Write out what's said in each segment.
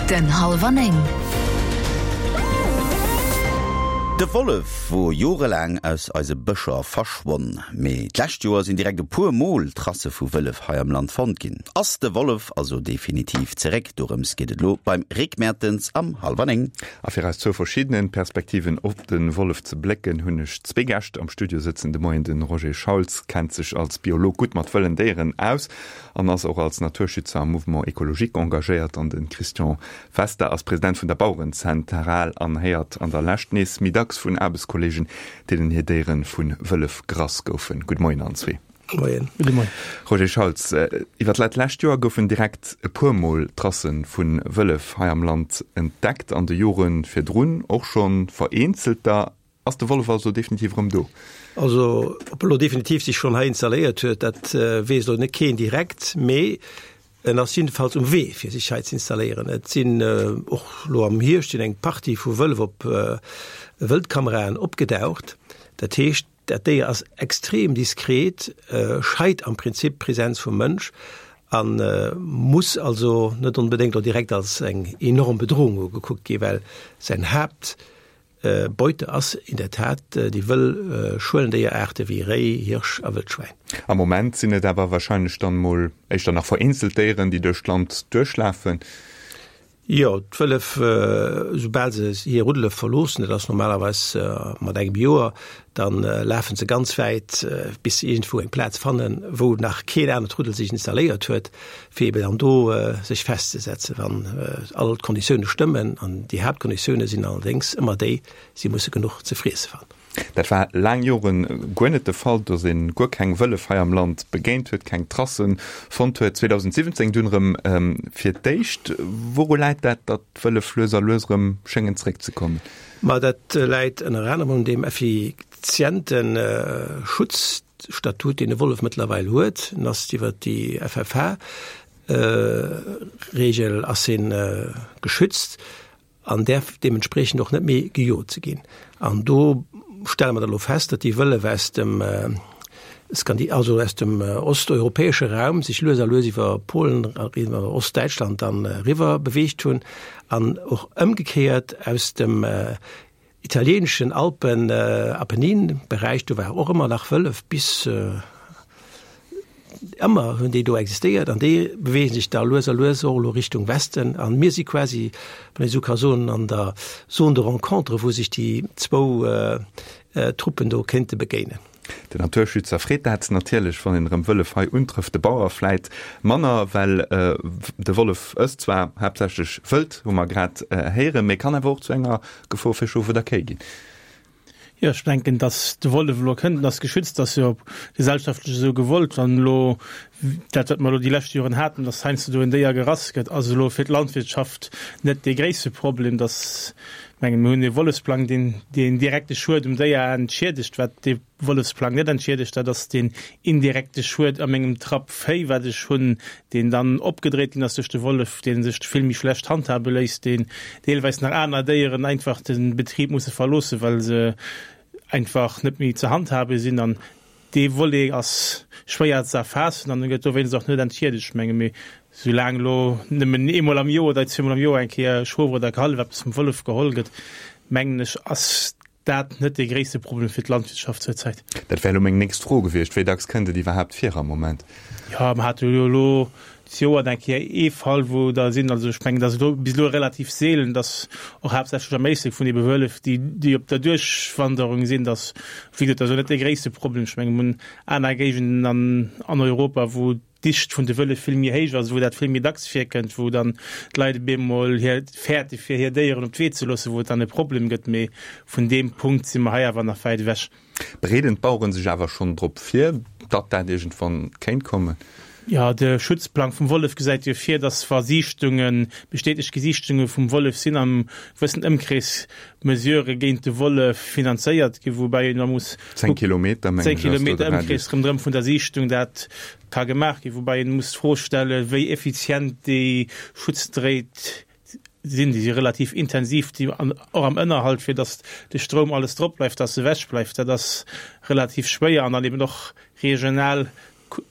Den Hallwer 9. De Wollef wor jorelaang aus eise Bëscher verschwonn. Mee d'lescht Joer sinn direkt e puer Mol Tracë vu Wëllef hei am Land fonnt ginn. Ass de Wollef also definitiv zeréck? Dorëms geet et elo beim Rick Mertens am Hallwer 9. A fir aus zwou verschiddenen Perspektiven op de Wollef ze blécken, hunn ech zwee Gäscht am Studio sëtzen. De Moien de Roger Schauls kennt sech als Biolog gutt mat wëllen Déieren aus an ass och als Naturschützer am Mouvement Ecologique engagéiert an de Christian Wester ass President vun der Bauerenzentral an héiert an der Lescht nees méi dacks vun Aarbechtskolleegen, deenen hir Déiere vu Wëllef gerass goufen. Gudde Moien allen zwee. Moien. Gudde Moien. Roger Schauls, iwwer dat lescht Joer goufen direkt e puer Mol Tracë vu Wëllef hei am Land entdeckt, an de Jore virdrun och scho vereenzelter. Ass de Wollef also definitiv erëm do? Also ob e lo definitiv sech schonn hei installéiert huet, dat weess elo net keen direkt, mee en ass jiddefalls um Wee fir sech hei ze installéieren. Et sinn och lo am Hierscht sinn eng Partie vu Wëllef op Wëldkameraen opgedaucht. Dat heescht, dat Déier ass extrem diskret, scheit am Prinzip d'Presenz vum Mënsch a muss also net onbedéngt lo direkt als eng enorm Bedrohung ugekuckt ginn, well säin Haapt Beute ass in der Tat déi wëll Schuelendéieraarte wéi Réi, Hirsch a Wëldschwäin. Am Moment sinn et awer warscheinlech dann mol éischter nach vereenzelt Déieren, déi duerch d'Land duerchlafen. Jo, d'Wëllef, soubal se hir Ruddele verloossen, dat ass normalerweis mat engem Joer, da lafe se ganz wäit, bis se iergendwou eng Plaz fannen, wou nach keen anert Ruddel sech installéiert huet. fir eben dann do sech festzesetzen, wann all d'Konditioune stëmmen. An déi Haaptkonditioune sinn allerdéngs ëmmer déi, si musse genuch ze friesse fannen. Dat war laang Jore guer net de Fall, datt ee guer keng Wëllef hei am Land begéint huet, keng Tracen fonnt huet. 2017 dunn erëm fir d'éischt. Wouru läit dat, datt d'Wëllef lues a lues erëm schéngen zeréckzekommen? Ma dat läit ënner anerem un deem effiziente Schutz, Statut, deen de Wollef mëttlerweil huet, en ass iwwer déi FFH-Regel ass en geschützt an däerf deementspriechend och net méi gejot ze ginn. An do stelle mer da lo fest, datt déi Wëllef aus dem Skandi-, also aus dem osteuropäesche Raum sech lues a lues iwwer Polen, iwwer Ostdäitschland dann eriwwer beweegt hunn an och ëmgekéiert aus dem Italieeneschen Alpen, Apennin-Beräich, do war och ëmmer nach Wëllef, bis ëmmer hunn déi do existéiert an déi beweegen sech da lues a lues och elo Richtung Westen an mir si quasi, wann ee sou ka soen, an der Zone de rencontre, wou sech déi zwou Truppen do kéinte begéinen. Den Naturschützer freet dat natierlech, wann een erëm Wëllef hei untrëfft. De Bauer vläit manner, well de Wollef ësst zwar haaptsächlech Wëld, hu mer grad héieren, mee kann awer och zu enger Gefor fir Schof oder Kéi ginn. Jo, ech denken, datt de Wollef elo kënnt, en ass geschützt, ass jo gesellschaftlech esou gewollt. Wann elo dat, wat mer elo déi lescht Joren haten, datt heiansdo do en Déier gerass gëtt, ass elo fir d'Landwirtschaft net dee gréisste Problem. Datt Mengen, mir hunn e Wollefsplang, deen deen direkte Schued um Déier entschiedegt. Wat dee Wollefsplang net entschiedegt, dat ass deen indirekte Schued a mengem Trapp Véi, wat ech hunn, deen dann opgedréit ginn ass duerch de Wollef, dee sech vill méi schlecht handhabe léisst, deen deelweis nach aner Déieren einfach de Betrib musse verloossen, well se einfach net méi ze handhabe sinn. An Dee Volet ass schwéier ze erfaassen an e gëtt dowéinst och net entschiedegt, menge mir. Soulaang elo nëmmen eemol am Joer oder zweemol am Joer eng Kéier e Schof oder e Kallef eppes vum Wollef geholl gëtt, mengen ech, ass dat net dee gréisste Problem fir d'Landwirtschaft zur Zäit. Dat wär elo meng nächst Fro gewiescht. Wéi dacks kënnt et iwwerhaapt vir am Moment? Jo, mer hate jo elo D'Joer eng Kéier ee Fall, wou der sinn. Also ech mengen, dat ass elo bis elo relativ seelen, dass och haaptsächlech am Éislek vun ebe Wëllef, déi, déi op der Duerchwanderung sinn, dass, wéi gesot, dat ass elo net dee gréisste Problem. Ech mengen, mir hunn aner Géigenden an, an Europa, wou d'Dicht vun de Wëllef vill méi héich ass, wou dat vill méi dacks virkënnt, wou dann d'Leit op eemol hir fäerte fir hir Déieren op d'Wee ze loossen, wou et dann e Problem gëtt. Mee vun deem Punkt si mer hei awer nach wäit ewech. Bereeden d'Baueren sech awer schonn drop vir, datt dat iergendwann kéint kommen? Jo, de Schutzplang vum Wollef gesäit jo vir, datt wa Siichtungen, bestätegt Gesichtunge vum Wollef sinn, am gewëssen Ëmkrees Mesurë géint de Wollef finanzéiert ginn, woubäi een da muss 10 Kilometer, mengen ech, ass do de Radius. Ëmkrees ronderëm vun der Siichtung dat ka gemaach ginn, woubäi een muss d'Fro stellen, wéi effizient déi Schutzdréit sinn, déi si relativ intensiv, déi an och am Ënnerhalt, fir datt de Stroum alles drop bleift, datt e wech bleift, dat ass relativ schwéier an dann eben och regional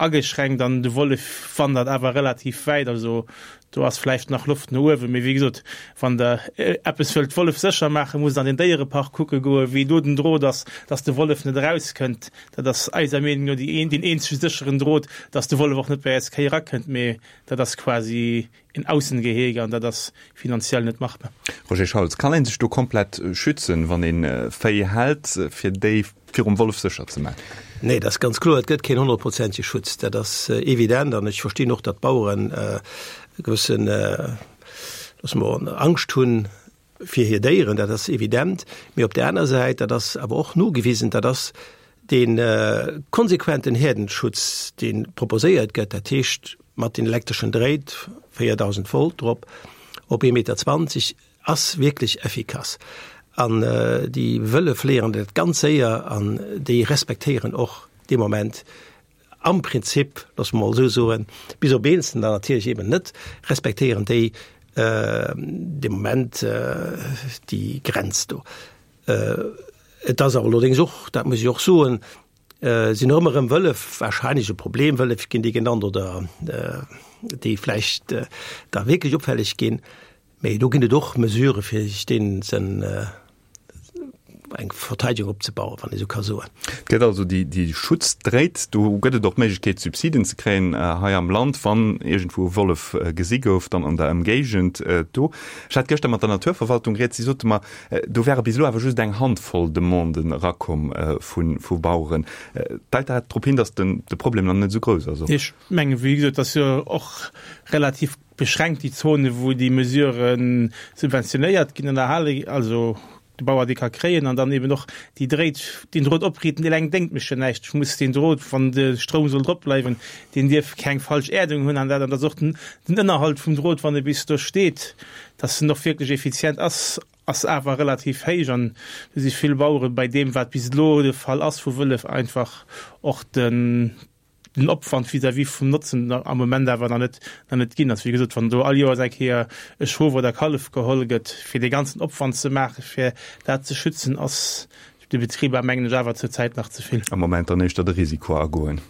ageschränkt an de Wollef wandert awer relativ wäit. Also. Do ass vläicht nach Loft no uewen, mee wéi gesot, wann Der eppes wëllt Wollef sécher maachen, musst Der an den Déierepark kucke goen, wéi do den Drot ass, dass de Wollef net erauskënnt. Dat ass eiser Meenung no déi een, deen eenzege sécheren Drot, dass de Wollef och net bei eis Kéi erakënnt, mee dat ass quasi en Aussengehege an dat ass finanziell net machbar. Roger Schauls, Kann ee sech do komplett schützen, wann ee Véi hält, fir déi virum Wollef sécher ze maachen? Nee, dat ass ganz kloer, et gëtt keen honnertprozentege Schutz, dat ass evident. An ech verstinn och, datt d'Baueren e gewëssen, loosse mer, Angscht hunn fir hir Déieren, dat ass evident. Mee op där aner Säit, dat ass awer och nogewisen, dat ass dee konsequenten Häerdenschutz, dee proposéiert gëtt, dat heescht mat den elektreschen Dréit, 4.000 Volt drop, op ee Meter 20, Ass wierklech effikass. An déi Wëllef léieren dat ganz séier an déi respektéieren och dee Moment am Prinzip, loosse mer mol esou soen, bis op eenzelner dann natierlech eben net, respektéieren déi dee Moment déi Grenz do. Et ass awer allerdéngs och, dat muss ech och soen, sinn och ëmmer erëm Wëllef wahrscheinlech e Problem, Wëllef ginn déi genannt oder déi vläicht da wierklech opfälleg ginn. Mee do ginn et och Mesurë fir sech deenen sen eng Verteidigung opzebauen, wann ee sou ka soen. Et gëtt also déi, déi Schutzdréit. Do gëtt et och d'Méiglechkeet Subsiden ze kréien hei am Land, wann iergendwou e Wollef gesi gouf, dann an der Ëmgéigend do. Ech hat gëschter mat der Naturverwaltung rieds, si sote mer, do wäre bis elo awer just eng Handvoll Demanden erakomm vu, vu Baueren. Deit dat drop hin, datt den, de Problem nach net esou grouss ass och? Ech mengen, wéi gesot, et ass jo och relativ beschränkt déi Zone wou déi Mesurë subventionéiert ginn an erhale, also de Bauer déi ka kréien an dann eben och déi Dréit, deen Drot opriiten, eleng déngt mech jo näischt. Ech muss deen Drot, wann de Stroum soll drop bleiwen, deen dierf keng falsch Äerdung hunn an dat an dass och den den Ënnerhalt vum Drot, wann e bis do steet, dass en och wierklech effizient ass, ass awer relativ héich an do si vill Bauere bei deem wat bis elo de Fall ass vu Wëllef einfach och den den Opwand vis-à-vis vum Notzen am Moment awer nach net, nach net ginn ass. Wéi gesot, wann do all Joers eng Kéier e Schof oder e Kallef geholl gëtt, fir dee ganzen Opwand ze maachen, fir dat ze schützen, ass de Betriber, mengen ech, awer zurzäit nach ze vill. Am Moment dann éischter de Risiko agoen.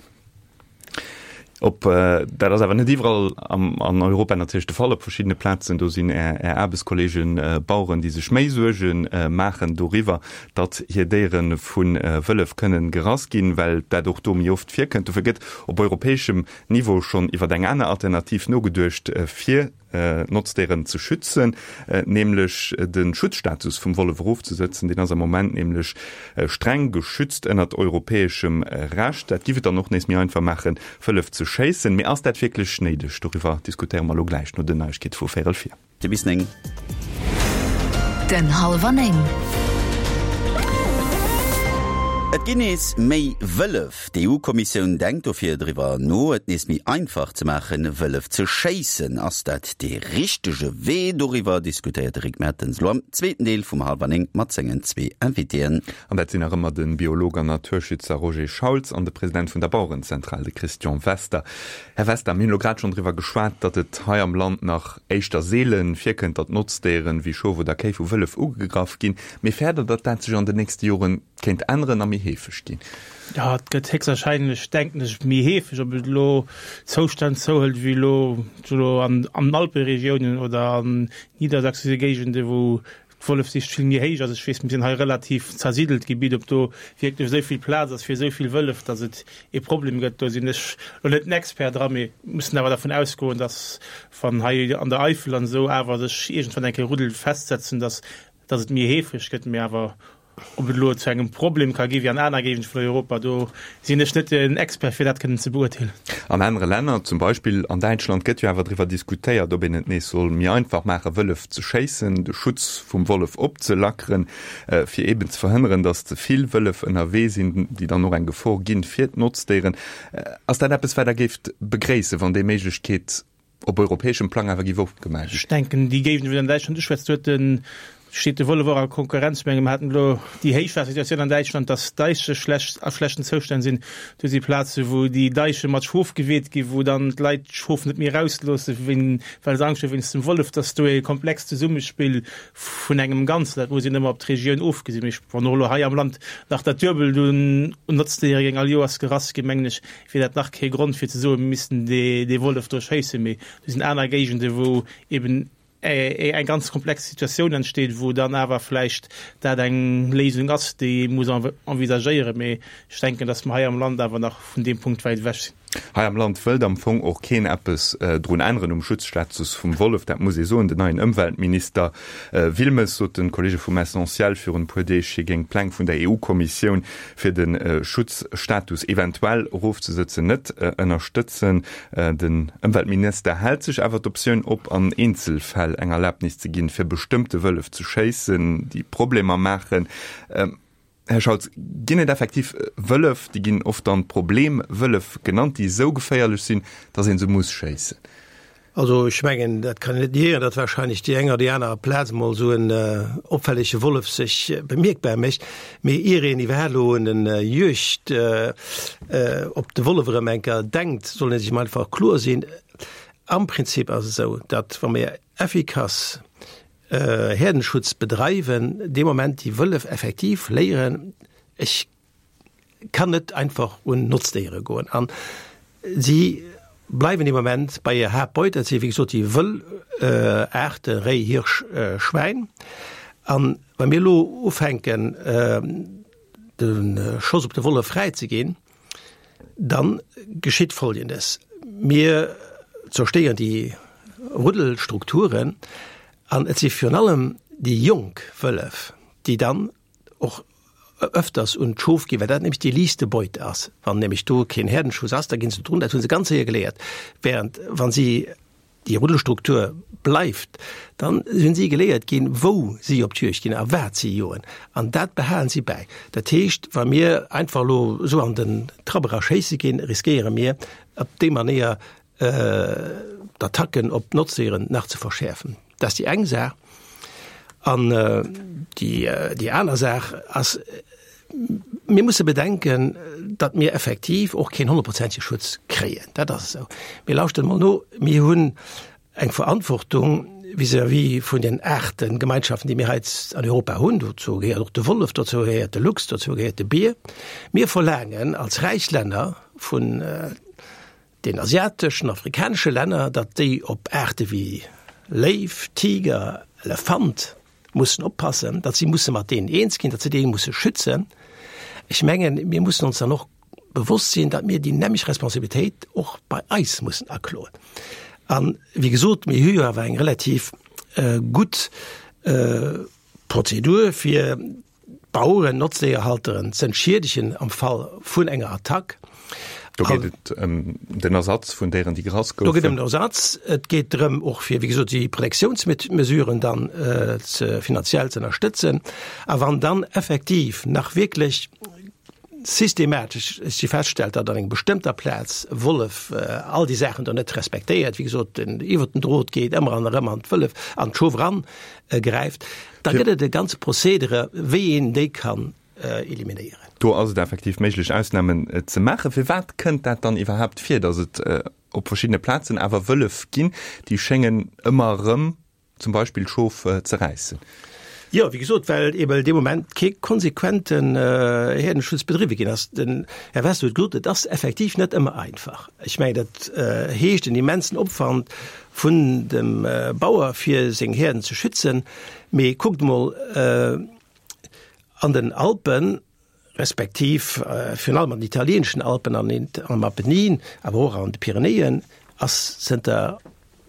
Op, dat ass awer net iwwerall an Europa natierlech de Fall. Op verschiddene Plazen, do sinn Är, Är Aarbechtskolleegen Baueren, déi sech méi Suerge maachen doriwwer, datt hir Déiere vu Wëllef kënnen gerass ginn, well dat och do méi oft virkënnt. Dofir gëtt op europäeschem Niveau schonn iwwer eng aner Alternativ nogeduecht, fir d'Notzdéieren ze schützen, nämlech de Schutzstatus vum Wollef erofzesëtzen. Deen ass am Moment nämlech streng geschützt ënnert europäeschem Recht. Dat giff et dann och nees méi einfach maachen, Wëllef ze schéissen. Mee ass dat wierklech néideg? Doriwwer diskutéiere mer elo gläich no den Neiegkeete vu véierel vir. Te bis 9. Den Hallwer 9. Et ginn nees méi Wëllef. D'EU-Kommissioun denkt dofir driwwer no, et nees méi einfach ze maachen, Wëllef ze schéissen. Ass dat dee richtege Wee? Doriwwer diskutéiert de Rick Mertens elo am zweeten Deel vum Hallwer 9 mat sengen zwee Invitéen. An dat sinn nach ëmmer de Biolog an Naturschützer Roger Schauls an de President vun der Bauerenzentral, de Christian Wester. Här Wester, mir hunn elo grad schonn driwwer geschwat, datt et hei am Land nach éischter seele virkënnt, datt Notzdéieren wéi Schof oder Kéi vu Wëllef ugegraff ginn. Mee fäert Der, datt dat sech an den nächste Jore kéint änneren a méi heefeg ginn? Jo, et gëtt héchstwahrscheinlech, denken ech, méi heefeg. Ob et elo Zoustänn zouhëlt wéi elo elo an den Alperegiounen oder an niedersächsesche Géigende wou D'Wollefsicht vill méi héich ass. Ech weess, mir sinn hei relativ zersidelt Gebitt, ob do wierklech esou vill Plaz ass fir esou vill Wëllef, datt et ee Problem gëtt, do sinn ech elo net den Expert dra, mee mussen awer dervun ausgoen, datt wann hei an der Eifel an esou awer sech iergendwann eng Kéier Ruddel festsetzen, datt datt et méi heefeg gëtt. Mee awer ob et elo zu engem Problem ka gi wéi an aner Géigende vun Europa, do sinn ech net den Expert fir dat kënnen ze beurteelen. An anere Länner, zum Beispill an Däitschland, gëtt jo awer driwwer diskutéiert, ob een et nees soll méi einfach maachen, Wëllef ze schéissen, de Schutz vum Wollef opzelackeren, fir eeben ze verhënneren, datt ze vill Wëllef ënnerwee sinn, déi dann och eng Gefor ginn fir d'Notzdéieren. Ass dat eppes, wat Der géift begréissen, wann déi Méiglechkeet op europäeschem Plang awer géif opgemaach ginn? Ech denken, déi Géigend, wou Der an Däitschland uschwätzt, do huet de. Steet de Wollef och a Konkurrenz? Ech menge mer haten elo déi Héichwaassersituatioun an Däitschland, datt d'Deiche schlecht, a schlechten Zoustänn sinn. Do si Plaze wou déi Deiche mat Schof geweet ginn, wou dann d'Leit d'Schof net méi erausloossen, well se Angscht hu wéinst dem Wollef. Datt do e komplext Zesummespill vun engem Ganzen, dat muss een ëmmer op d'Regioun ofgesinn. Mee wann och elo hei am Land nach dat Duebelt un Notzdéiere géing all Joers gerass ginn, mengen ech, wier dat nach kee Grond fir ze soen, mir missten dee Wollef do schéissen. Mee do sinn aner Géigende wou eben eng ganz komplex Situatioun entsteet, wou dann awer vläicht dat eng Léisung ass, déi ee muss envisagéieren. Mee ech denken, datt mer hei am Land awer nach vun deem Punkt wäit ewech sinn. Hei am Land wëllt am Fong och keen eppes drun änneren um Schutzstatus vum Wollef, dat muss ee soen. Den neien Ëmweltminister Wilmes sot de Kollege vum Essentiel virun e puer Deeg, hie géing d'Pläng vun der EU-Kommissioun fir de Schutzstatus eventuell erofzesëtzen net ënnerstëtzen. Den Ëmweltminister hält sech awer d'Optioun op, an Eenzelfäll eng Erlabnis ze ginn, fir bestëmmte Wëllef ze schéissen, déi Problemer maachen. Här Scholz, ginn et effektiv Wëllef, déi ginn oft dann Problemwëllef genannt, déi esou geféierlech sinn, datt ee se muss schéissen? Also ech mengen, dat kann een net niéieren, datt wahrscheinlech déi eng oder déi aner Plaz emol esou en opfällege Wollef sech bemierkbar mécht. Mee ier een iwwerhaapt elo un en Juegd op de Wollef erëm eng Kéier denkt, soll ee sech emol einfach kloer sinn, Am Prinzip ass et esou, datt wa mir effikass Häerdenschutz bedreiwen, dee Moment déi Wëllef effektiv léieren, ech kann net einfach un Notzdéiere goen. An si bleiwen dee Moment bei hir Haaptbeut, dat si wéi gesot déi wëll Aarte Réi, Hirsch, Schwäin. An wa mir elo ufänken de Schoss op de Wollef fräi ze ginn, dann geschitt Folgendes, Mir zerstéieren déi Ruddelstrukturen an et si virun allem déi jonk Wëllef, déi dann och öfters un d'Schof ginn, well dat nämlech déi liichtste Beute ass. Wann nämlech do keen Häerdenschuss ass, da ginn se drun, dat hu se ganz séier geléiert. Während wa si déi Ruddelstruktur bleift, dann hunn si geléiert ginn, wou si op d'Juegd ginn a wat si joen. An dat behalen si bäi. Dat heescht, wa mir einfach elo esou an den Trapp era schéisse ginn, riskéiere mir op déi Manéier d'Attacken op d'Notzdéieren nach ze verschäerfen. Dat ass déi eng Saach. An déi aner Saach ass, mir musse bedenken, datt mir effektiv och keen honnertprozentege Schutz kréien. Dat ass esou. Mee lauschtert emol no, Mir hunn eng Verantwortung vis-à-vis vun den Aartegemeinschaften, déi mir hei an Europa hunn. Dozou gehéiert och de Wollef, dozou gehéiert de Luchs, dozou gehéiert de Bier. Mir verlaangen als räich Länner vun den asiateschen, afrikanesche Länner, datt déi op Aarte wéi Léiw, Tiger, Elefant mussen oppassen, datt si musse mat deenen eens ginn, datt se déi musse schützen. Ech mengen, mir mussen ons dann och bewosst sinn, datt mir déi nämlech Responsabilitéit och bei eis mussen akloen. An, wéi gesot, mir hu jo awer eng relativ gutt Prozedur fir D'Baueren, Notzdéierhalteren z'entschiedegen am Fall vun enger Attack. Do geet et ëm den Ersatz vun Déieren, déi gerass goufen. Do geet ëm den Ersatz. Et geet drëm och fir, wéi gesot, déi Protektiounsmesuren dann ze finanziell ze ënnerstëtzen. A wann dann effektiv nach wierklech systematesch si feststellt, datt an enger bestëmmter Plaz e Wollef all déi Saachen do net respektéiert, wéi gesot, den iwwert den Drot geet, ëmmer an erëm an d'Wëllef, an d'Schof eran gräift, da gëtt et e ganze Procedere, wéi een déi kann eliminéieren. Do ass et effektiv méiglech, Ausnamen ze maachen. Firwat kënnt dat dann iwwerhaapt vir, datt et op verschiddene Plazen awer Wëllef ginn, déi schéngen ëmmer erëm zum Beispill d'Schof ze räissen? Jo, wéi gesot, well eeben dee Moment kee konsequenten Häerdenschutz bedriwwe ginn ass. Den Här Wester huet gesot, et ass effektiv net ëmmer einfach. Ech mengen, dat heescht en immensen Opwand vun dem Bauer, fir seng Häerden ze schützen. Mee kuckt emol, an den Alpen, respektiv virun allem an den italieeneschen Alpen an am Apennin, awer och an de Pyrenäen, ass zënter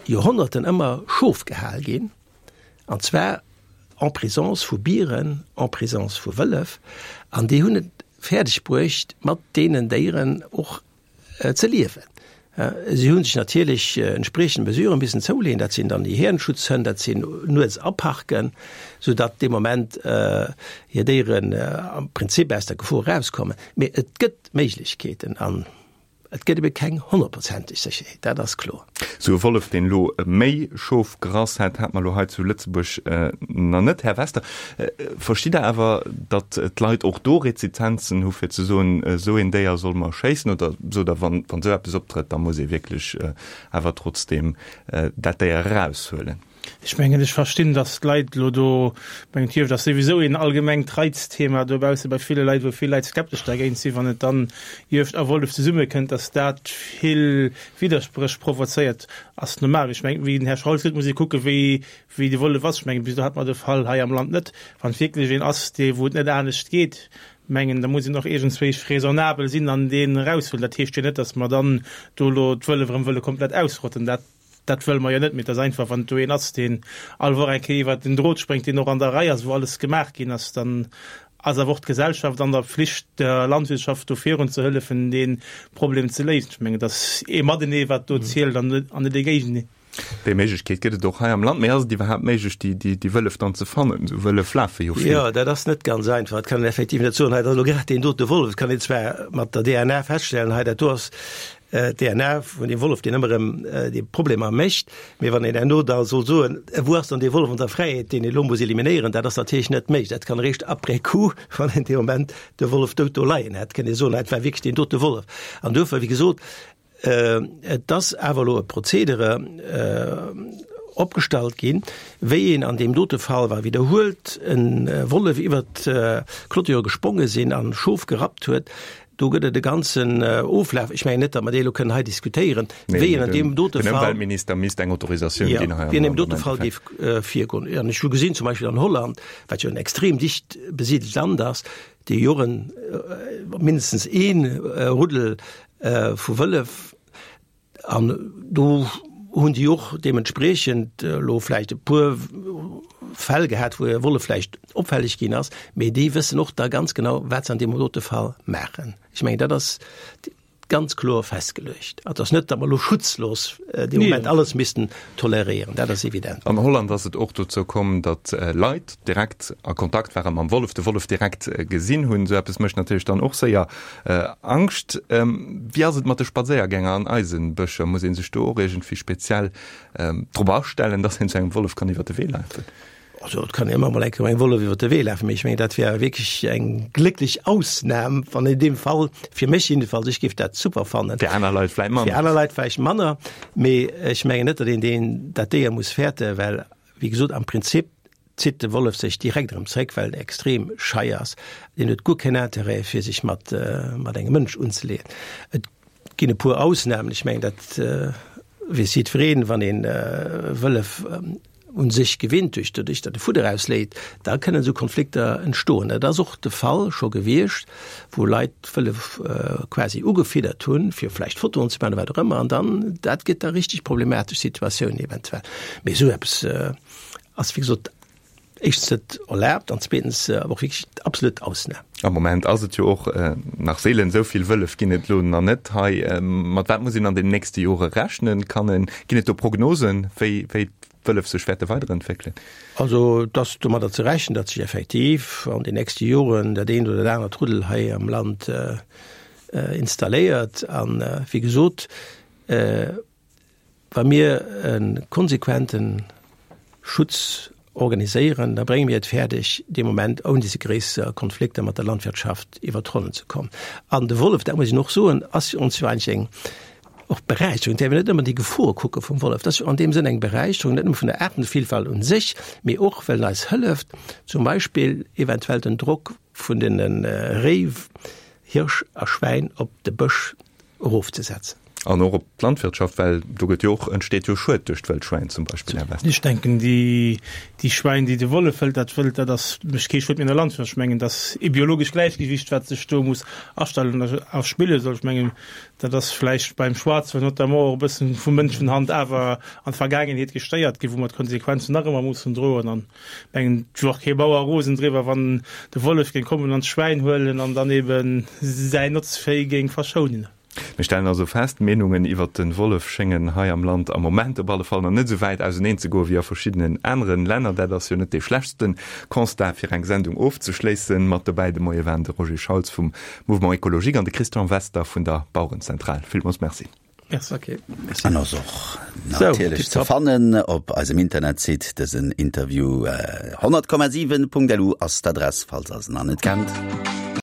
Joerhonnerten ëmmer Schof gehal ginn, an zwar en présence vu Bieren, en présence vu Wëllef, an déi hunn et fäerdeg bruecht, mat deenen Déieren och ze liewen. Si hu sech natierlech entspriechend Mesuren missen zouleeën, dat sinn dann déi Häerenschutzhënn, dat sinn nuets aparken, soudatt dee Moment hir Déieren am Prinzip aus der Gefor erauskommen. Mee et gëtt Méiglechkeeten an. Et gëtt ebe keng honnertprozenteg Sécherheet, dat ass kloer. Sou e Wollef, deen elo méi Schof gerass hätt, hat mer elo hei zu Lëtzebuerg nach net. Här Wester, verstitt Der awer, datt d'Leit och do Rezizenzen hu fir ze soen, esou een Déier solle mer schéissen? Oder sot Der, wann esou eppes optrëtt, da muss ee wierklech awer trotzdeem dat Déier eraushuelen? Ech mengen, ech verstinn, datt d'Leit elo do, ech mengen, d'Juegd ass souwisou een allgemengt Reizthema dobausse bei ville Leit, wou vill Leit skeptesch dergéint sinn, wann et dann Juegd a Wollef zesummekënnt, datt dat vill Widderspréch provozéiert, ass normal. Ech mengen, wéi den Här Schraul seet, muss ee kucken, wéi, wéi de Wollef ass. Ech mengen, bis elo hat mer de Fall hei am Land net. Wann et wierklech een ass, dee wou et net anescht geet, mengen, da muss een och iergendswéi raisonnabel sinn an deen eraushuelen. Dat heescht jo net, datt mer dann do elo d'Wëllef erëm wëlle komplett ausrotten. Dat. Dat wëlle mer jo net, mee et ass einfach, wann do een ass, deen all Woch eng Kéier iwwert den Drot spréngt, deen och an der Rei ass, wou alles gemaach ginn ass, dann ass awer och d'Gesellschaft an der Pflicht, der Landwirtschaft do virun ze hëllefen, dee Problem ze léisen. Ech mengen, et ass ee Matenee, wat do zielt, an net ee Géigenee. Déi Méiglechkeet gëtt et och hei am Land. Mee ass et iwwerhaapt méiglech, déi Wëllef dann ze fannen? Esou Wëllef lafe jo vill. Jo, dat ass net ganz einfach. Dat kann een effektiv net soen, hei, dat ass elo grad deen dote Wollef. Et kann een zwar mat der DNA feststellen, hei, dat do ass d'DNA vun deem Wollef, deen ëmmer erëm déi Problemer mécht. Mee wann een herno da soll soen, wou ass dann dee Wollef an der Fräiheet, deen ee elo muss eliminéieren, dat ass natierlech net méiglech. Dat kann eréischt après coup, wann een dee Moment de Wollef dout do leien hätt, kënnt ee soen, dat war wierklech deen dote Wollef. An duerfir, wéi gesot, et ass awer elo e Prozedere opgestallt ginn, wéi een an deem dote Fall, wa widderhuelt e Wollef iwwert d'Clôture gespronge sinn an Schof gerappt huet, Do gëtt et e ganzen Oflaf. Ech mengen net, datt mer dee elo kënnen hei diskutéieren, wéi een an deem dote Fall. Den Ëmweltminister misst eng Autorisatioun ginn hei am Land. Wéi een an deem dote Fall géif virgoen. An ech hu gesinn, zum Beispill an Holland, wat jo en extrem dicht besidelt Land ass, déi jo och en, mindestens ee Ruddel vu Wëllef, An do hunn déi och deementspriechend elo vläicht e puer Fäll gehat, wou e Wollef vläicht opfälleg ginn ass, mee déi wëssen och da ganz genau, wat se an deem dote Fall maachen. Ech mengen, dat ass ganz kloer festgeluecht. Et ass net, datt mer elo schutzlos dee Moment alles missten toleréieren, dat ass evident. An Holland ass et och dozou komm, datt Leit direkt a Kontakt ware mam Wollef, de Wollef direkt gesinn hunn. Esou eppes mécht natierlech dann och séier Angscht. Wéi ass et mat de Spadséiergänger an eise Bëscher? Muss ee sech do och iergendwéi speziell drop astellen, dass een zu engem Wollef kann iwwer de Wee lafen? Also et kann een ëmmer mol eng Kéier engem Wollef iwwer de Wee lafen, mee ech mengen, dat wär wierklech eng glécklech Ausnam, wann in deem Fall, fir mech jiddefalls, ech géif dat super fannen. Fir aner Leit vläicht manner. Fir aner Leit vläicht manner, mee ech mengen net, datt een deen, dat Déier muss fäerten, well, wéi gesot, am Prinzip zitt de Wollef sech direkt erëm zréck, well en extrem schei ass. Deen huet guer keen Interêt, fir sech mat, mat engem Mënsch unzeleeën. Et ginn e puer Ausnamen, ech mengen, dat weess jiddwereen, wann een Wëllef un sech gewinnt, duerch doduerch, datt e Fudder ausleet, da kënnen esou Konflikter entstoen. Dat ass och de Fall scho gewiescht, wou Leit d'Wëllef quasi ugefiddert hunn, fir vläicht Fotoen ze maachen oder wat och ëmmer, an dann, dat gëtt da richteg problematesch Situatiounen eventuell. Mee esou eppes Ass wéi gesot éischtens net erlaabt an zweetens awer och wierklech d'absolut Ausnam. Am Moment ass et jo och nach seelen, esou vill Wëllef ginn et elo nach net hei. Mat wat muss een an den nächste Jore rechnen? Kann en, ginn et do Prognosen, wéi wéi d'Wëllef sech wäerte weiderentwéckelen? Also et ass domadder ze rechnen, datt sech effektiv an den nächste Joren dat eent oder dat anert Ruddel hei am Land installéiert. An wéi gesot, Wa mir e konsequente Schutz organiséieren, da brénge mir et fäerdeg, dee Moment ouni ze gréisser Konflikter mat der Landwirtschaft iwwer d'Ronnen ze kommen. An de Wollef, dat muss een och soen, ass fir ons jo eigentlech eng och Beräicherung. Et däerf een net ëmmer déi Gefor kucke vum Wollef. Dat ass jo an deem Sënn eng Beräicherung, net nëmme vun der Aartenvielfalt un sech, mee och well en eis hëlleft, zum Beispill eventuell den Drock vun den Réi, Hirsch a Schwäin op de Bësch erofzesetzen. An och op d'Landwirtschaft, well do gëtt jo och, entsteet jo Schued duerch d'Wëllschwäin zum Beispill, Här Wester. Ech denken, déi, déi Schwäin, déi de Wollef hëlt, dat Wëld, dat ass, mécht kee Schued méi an der Landwirtschaft. Ech mengen, dat ass ee biologescht Gläichgewicht, wat sech do muss astellen a erspille soll. Ech mengen, dat ass vläicht beim Schwarzwëld notamment och e bëssen vu Mënschenhand awer an d'Vergaangenheet gestéiert ginn, wou mer d'Konsequenzen nach ëmmer mussen droen. An mengen, et wier och kee Bauer rosen driwwer, wann de Wollef géing kommen an d'Schwäin huelen an dann eben säin Notzvéi géing verschounen. Mir stellen also fest, d'Meenungen iwwert de Wollef schéngen hei am Land am Moment op alle Fall nach net esou wäit auseneen ze goen wéi a verschiddenen aneren Länner. Dat ass jo net dee schlechtste Constat fir eng Sendung ofzeschléissen. Mat dobäi de Moie waren de Roger Schauls vum Mouvement Ecologique an de Christian Wester vun der Bauerenzentral. Villmools Merci. Merci. Okay. An ass och natierlech ze fannen op eisem Internetsite dësen Interview. 100,7.lu ass d'Adress, falls der se nach net kennt.